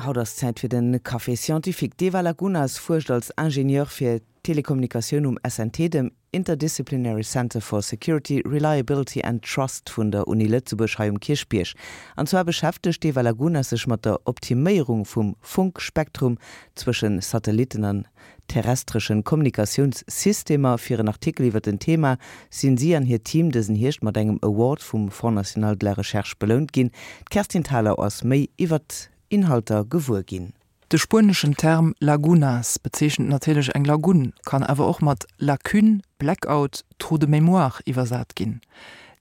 Haut ass Zäit fir den Café Scientifique. D'Eva Lagunas fuerscht als Ingenieur fir Telekommunikatioun um SNT, dem Interdisciplinary Center for Security, Reliability and Trust vun der Uni Lëtzebuerg hei um Kierchbierg. An zwar beschäftegt d'Eva Lagunas sech mat der Optiméierung vum Funkspektrum zwëschen Satellitten an terrestreschen Kommunikatiounssystemer. Fir en Artikel iwwer den Thema sinn si an hiert Team dësen Hierscht mat engem Award vum Fonds National de la Recherche belount ginn. D'Kerstin Thalau ass méi iwwer d'Inhalter gewuer ginn. De spueneschen Term lagunas bezeechent natierlech eng Lagun, kann awer och mat Lacune, Blackout, Trou de mémoire iwwersat ginn.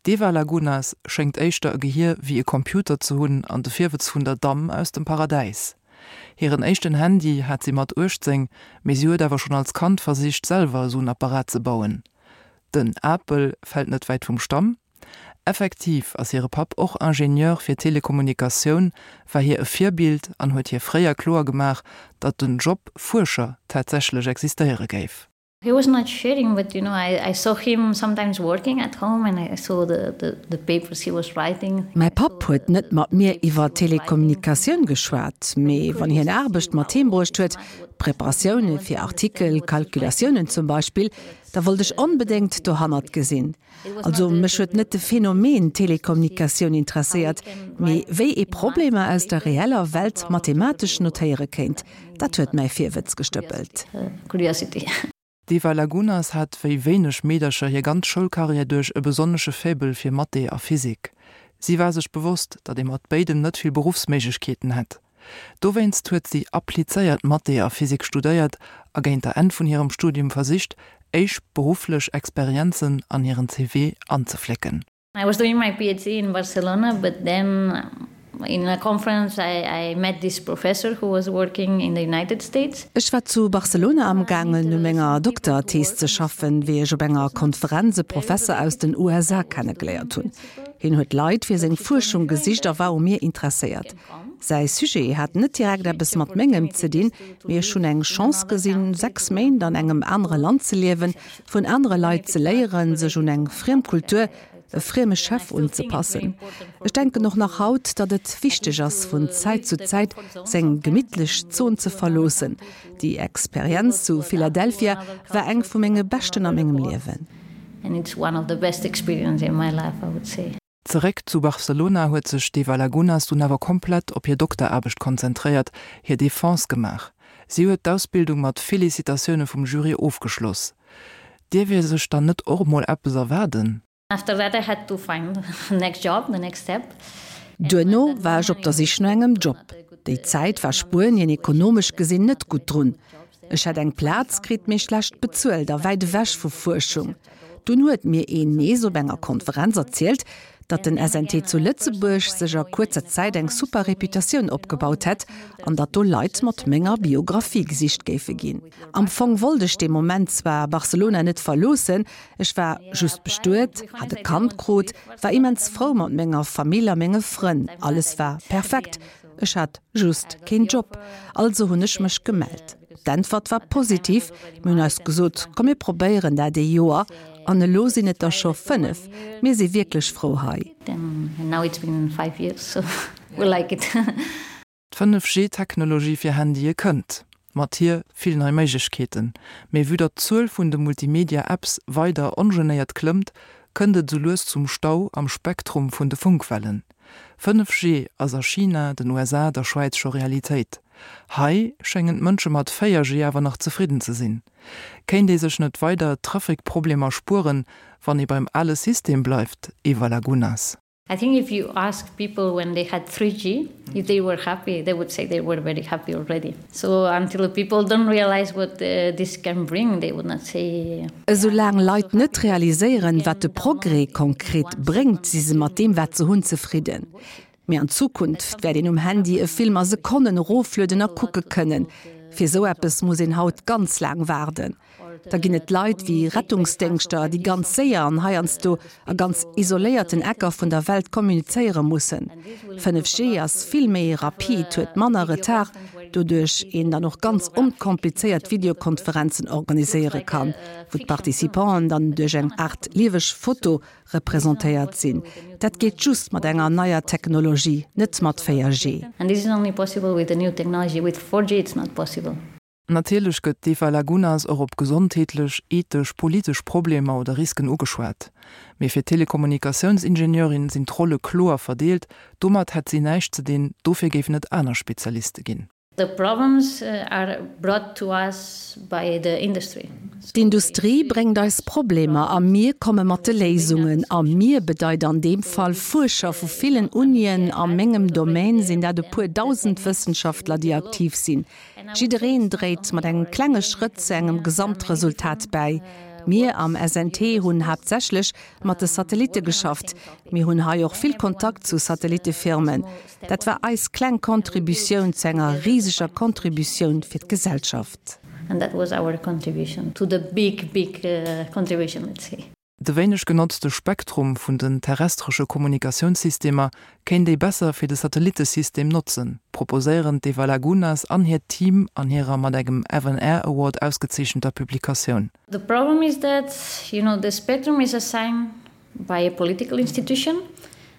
D'Eva Lagunas schéngt éischter e Gehier wéi e Computer ze hunn an de Virwëtz vun der Damm aus dem Paradäis. Hiren éischten Handy hat si mat 18, mee si huet awer schonn als Kand versicht selwer esou en Apparat ze bauen. Den Apel fält net wäit vum Stamm. Effektiv ass hire Papp och Ingenieur fir Telekommunikatioun, war hir e Virbild an huet hir fréier kloer gemaach, datt den Job Fuerscher tatsächlech existéiere géif. He was not sharing, but you know, I, I saw him sometimes working at home and I saw the, the, the papers he was writing. Mäi Papp huet net mat mir iwwer Telekommunikatioun geschwat, mee wann hien Aarbecht mat heem bruecht huet, Preparatioune fir Artikel, Calculatiounen zum Beispill, da wollt ech onbedéngt dohannert gesinn. Also mech huet net de Phänomen Telekommunikatioun interesséiert, mee wéi ee Problemer aus der reeller Welt mathematesch notéiere kéint. Dat huet mäi Virwëtz gestëppelt. D'Eva Lagunas hat wéi wéineg Meedercher hir ganz Schoulkarriär duerch e besonnesche Faible fir Mathé a Physik. Si war sech bewosst, datt ee mat béidem net vill Beruffsméiglechkeeten hätt. Dowéinst huet si applizéiert Mathé a Physik studéiert a géint der Enn vun hirem Studium versicht, éischt berufflech Experienzen an hiren CV anzeflécken. I was doing my PhD in Barcelona, but then in a conference I, I met this professor who was working in the United States. Ech war zu Barcelona amgaangen u menger Dokterthees ze schaffen, wéi ech op enger Konferenz e Professer aus den USA kennegeléiert hunn. Hien huet Leit fir seng Fuerschung gesicht a war u mir interesséiert. Säi Sujet hat net direkt eppes mat mengem ze dinn, mee ech hunn eng Chance gesinn, 6 Méint an engem anere Land ze liewen, vun anere Leit ze léieren, sech un eng friem Kultur, e frieme Chef unzepassen. Ech denken och nach haut, datt et wichteg ass, vun Zäit zu Zäit seng gemittlech Zon ze verloossen. Déi Experienz zu Philadelphia war eng vu menge beschten a mengem Liewen. Zeréck zu Barcelona huet sech d'Eva Lagunas dunn awer komplett op hir Dokteraarbecht konzentréiert, hir Defense gemaach. Si huet d'Ausbildung mat Felicitatioune vum Jury ofgeschloss. Dierf ee sech dann net och emol eppes erwaarden? After that I had to find the next job, the next step. Duerno war ech op der Sich no engem Job. Déi Zäit war Spuenien ekonomesch gesinn net gutt drun. Ech hätt eng Plaz kritt, mee schlecht bezuelt a wäit ewech vu Fuerschung. Dunn huet mir een nees op enger Konferenz erzielt, datt den SNT zu Lëtzebuerg sech a kuerzer Zäit eng super Reputatioun opgebaut hätt an datt do Leit mat menger Biographie gesicht géife ginn. Am Fong wollt ech dee Moment zwar Barcelona net verloossen, ech war just bestuet, hat e Kand krut, war immens frou mat menger Famill a menge Frënn, alles war perfekt. Ech hat just keen Job, also hunn ech mech gemellt. D'Äntwert war positiv, mir hunn eis gesot, komm mir probéieren dat ee Joer an elo sinn et der scho 5. Mir si wierklech frou hei. D' 5G-Technologie fir Handye kënnt. Mat hir vill nei Méiglechkeeten. Mee vue datt d'Zuel vun de Multimedia-Apps weider ongenéiert klëmmt, kënnt et esou lues zum Stau am Spektrum vun de Funkwellen. 5G ass a China, den USA, der Schwäiz scho Realitéit. Hei schéngen d'Mënsche mat 4G awer nach zefridden ze sinn. Kéint ee sech net weider Trafic-Problemer spueren, wann ee beim ale System bleift, Eva Lagunas? I think if you ask people when they had 3G, if they were happy, they would say they were very happy already. So until people don't realize what uh, this can bring, they would not say. Esoulaang Leit net realiséieren, wat de Progrès konkret bréngt, si se mat deem, wat se hunn, zefridden. Mee an Zukunft wäert een um Handy e Film a Sekonnen eroflueden a kucke kënnen. Fir esou eppes muss een haut ganz laang waarden. Da ginn et Leit wéi Rettungsdéngschter, déi ganz séier an heiansdo a ganz isoléierten Ecker vun der Welt kommunizéiere mussen. 5G ass vill méi rapid, huet manner Retard. Doduerch een dann och ganz onkomplizéiert Videokonferenzen organiséiere kann, wou d'Participanten dann duerch eng Aart lieweg Foto representéiert sinn. Dat geet just mat enger neier Technologie, net mat 4G. And this is only possible with the new technology, with 4G it's not possible. Natierlech gëtt d'Eva Lagunas och op gesondheetlech, ethesch, politesch Problemer oder Risken ugeschwat. Mee fir d'Telekommunikatiounsingenieurin sinn d'Rolle kloer verdeelt, domat hätt si näischt ze dinn, dofir géifen et aner Spezialiste ginn. The problems are brought to us by the industry. D'Industrie bréngt eis Problemer a mir komme mat de Léisungen. A mir bedeit an deem Fall Fuerscher vu villen Unien, a mengem Domaine sinn dat e puer dausend Wëssenschaftler, déi aktiv sinn. Jiddereen dréit mat engem klenge Schrëtt zu engem Gesamtresultat bäi. Mir am SNT hunn haaptsächlech mat de Satellitte geschafft. Mir hunn hei och vill Kontakt zu Satellittefirmen. Dat war eis kleng Contributioun zu enger riseger Contributioun fir d'Gesellschaft. And that was our contribution to the big, big contribution, let's say. De wéineg genotzte Spektrum vun den terrestresche Kommunikatiounssystemer kéint ee besser fir de Satellittesystem notzen, proposéieren d'Eva Lagunas an hiert Team an hirer mat engem FNR Award ausgezeechenter Publikatioun. The problem is that, you know, the spectrum is assigned by a political institution.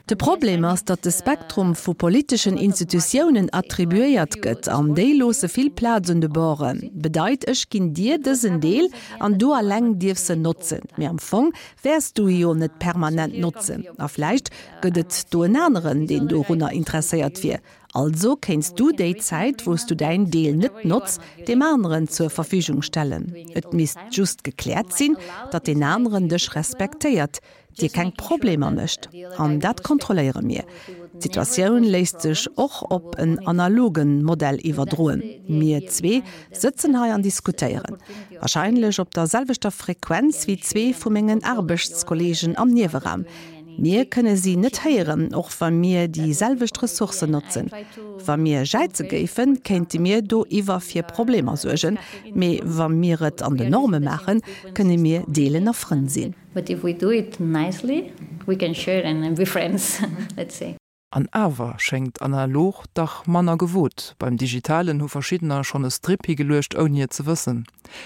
De Problem ass, datt de Spektrum vu politeschen Institutiounen attribuéiert gëtt, an déi loosse vill Plaz un de Borden. Bedeit, ech ginn dir dësen Deel an du alleng dierfs en notzen. Mee am Fong wäers du e jo net permanent notzen. A vläicht gëtt et do en aneren, deen dorunner interesséiert wier. Also kéints du déi Zäit, wou s du däin Deel net notz, deem aneren zur Verfügung stellen. Et misst just gekläert sinn, datt deen aneren dech respektéiert. dir keng Problemer mécht. An dat kontrolléiere mir. D'Situatioun léisst sech och op en analoge Modell iwwerdroen. Mir zwee sëtzen hei an diskutéieren, warscheinlech op der selwechter Frequenz wéi zwee vu mengen Aarbechtskollegen am Nieweraum. Mir kënne si net héieren, och wa mir déi selwecht Ressourcen notzen. Wa mir jäize géifen, kéinte mir doiwwer fir Problemer suergen. Mee wa mir et an den Norme maachen, kënne mir deelen a Frënn sinn. But if we do it nicely, we can share and be friends, let's say. An awer schéngt analog dach manner gewot. Beim Digitalen hu verschiddener schonn e Strip higeluecht, ouni et ze wëssen.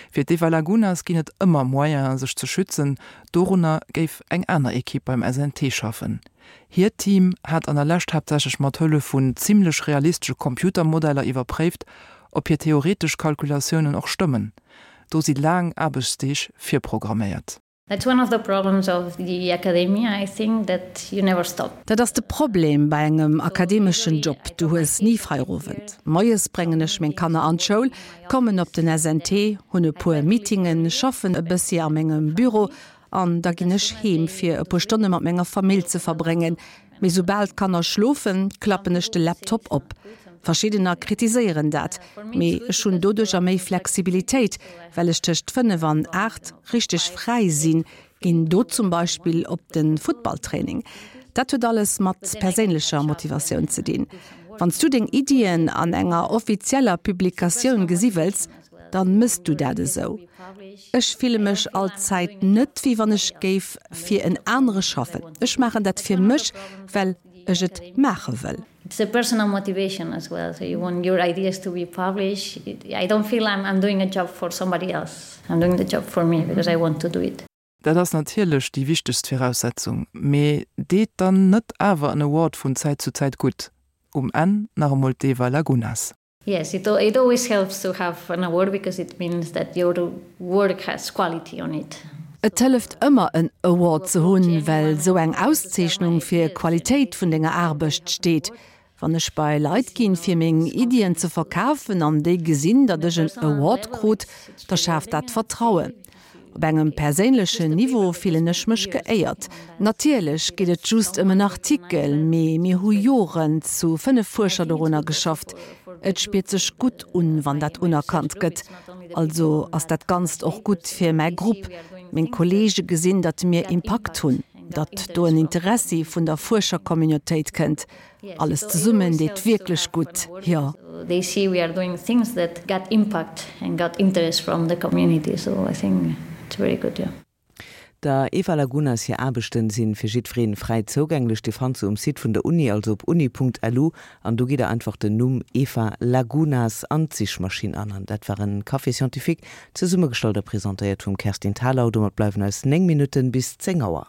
Fir d'Eva Lagunas ginn et ëmmer Moyenen, sech ze schützen. Dorunner géif eng aner Ekipp beim SNT schaffen. Hiert Team hat an der Lescht haaptsächlech mat Hëllef vun zimmlech realistesche Computermodeller iwwerpréift, ob hir theoretesch Kalkulatiounen och stëmmen. Do si laang Aarbechtsdeeg virprogramméiert. That's one of the problems of the academia, I think, that you never stop. Dat ass de Problem bei engem akademeschen Job, du hues ni Feierowend. Moies bréngen ech meng Kanner an d'Schoul, kommen op den SNT, hunn e puer Meetingen, schaffen e bëssi a mengem Büro an da ginn ech heem fir e puer Stonne mat menger Famill ze verbréngen. Mee soubal d'Kanner schlofen, klappen ech de Laptop op. Verschiddener kritiséieren dat, mee ech hunn doduercher méi Flexibilitéit, well ech tëscht 5 an 8 richteg fräi sinn, ginn do zum Beispill op de Futtballtraining. Dat huet alles mat perséinlecher Motivatioun ze dinn. Wann s du deng Iddien an enger offizieller Publikatioun gesi wëlls, dann mëss du dat esou. Ech fille mech all Zäit net wéi wann ech géif fir en anere schaffen. Ech maachen dat fir mech, well ech et maache wëll. It's a personal motivation as well, so you want your ideas to be published. I don't feel I'm I'm doing a job for somebody else, I'm doing the job for me because I want to do it. Dat ass natierlech déi wichtegst Viraussetzung, mee deet dann net awer en Award vun Zäit zu Zäit gutt? Um Enn nach emol d'Eva Lagunas. Yes, it, it always helps to have an award because it means that your work has quality on it. Et hëlleft ëmmer en Award ze hunn, well sou eng Auszeechnung fir Qualitéit vun denger Aarbecht steet. Wann ech bei Leit ginn, fir meng Iddien ze verkafen an déi gesinn, datt ech en Award krut, da schaaft dat Vertrauen. Op engem perséinlechen Niveau fillen ech mech geéiert. Natierlech geet et just ëm en Artikel, mee mir hu Joren zu 5 Fuerscher dorunner geschafft. Et spiert sech gutt un, wann dat unerkannt gëtt. Also ass dat Ganzt och gutt fir mäi Grupp. Meng Kolleege gesinn, datt mir Impakt hunn, datt do en Interessi vun der Fuerschercommunautéit kënnt. Alles zesummen deet wierklech gutt, jo. They see we are doing things that got impact and got interest from the community, so I think it's very good, yeah. Der Eva Lagunas hir Aarbechten sinn fir jiddwereen fräi zougänglech. Dir fannt se um Site vun der Uni, also op uni.lu an do gitt der einfach den Numm Eva Lagunas an d'Sichmaschinn an. An dat war en Café Scientifique, zesummegestallt a presentéiert vum Kerstin Thalau. Domat bleiwen eis 9 Minutten bis 10 Auer.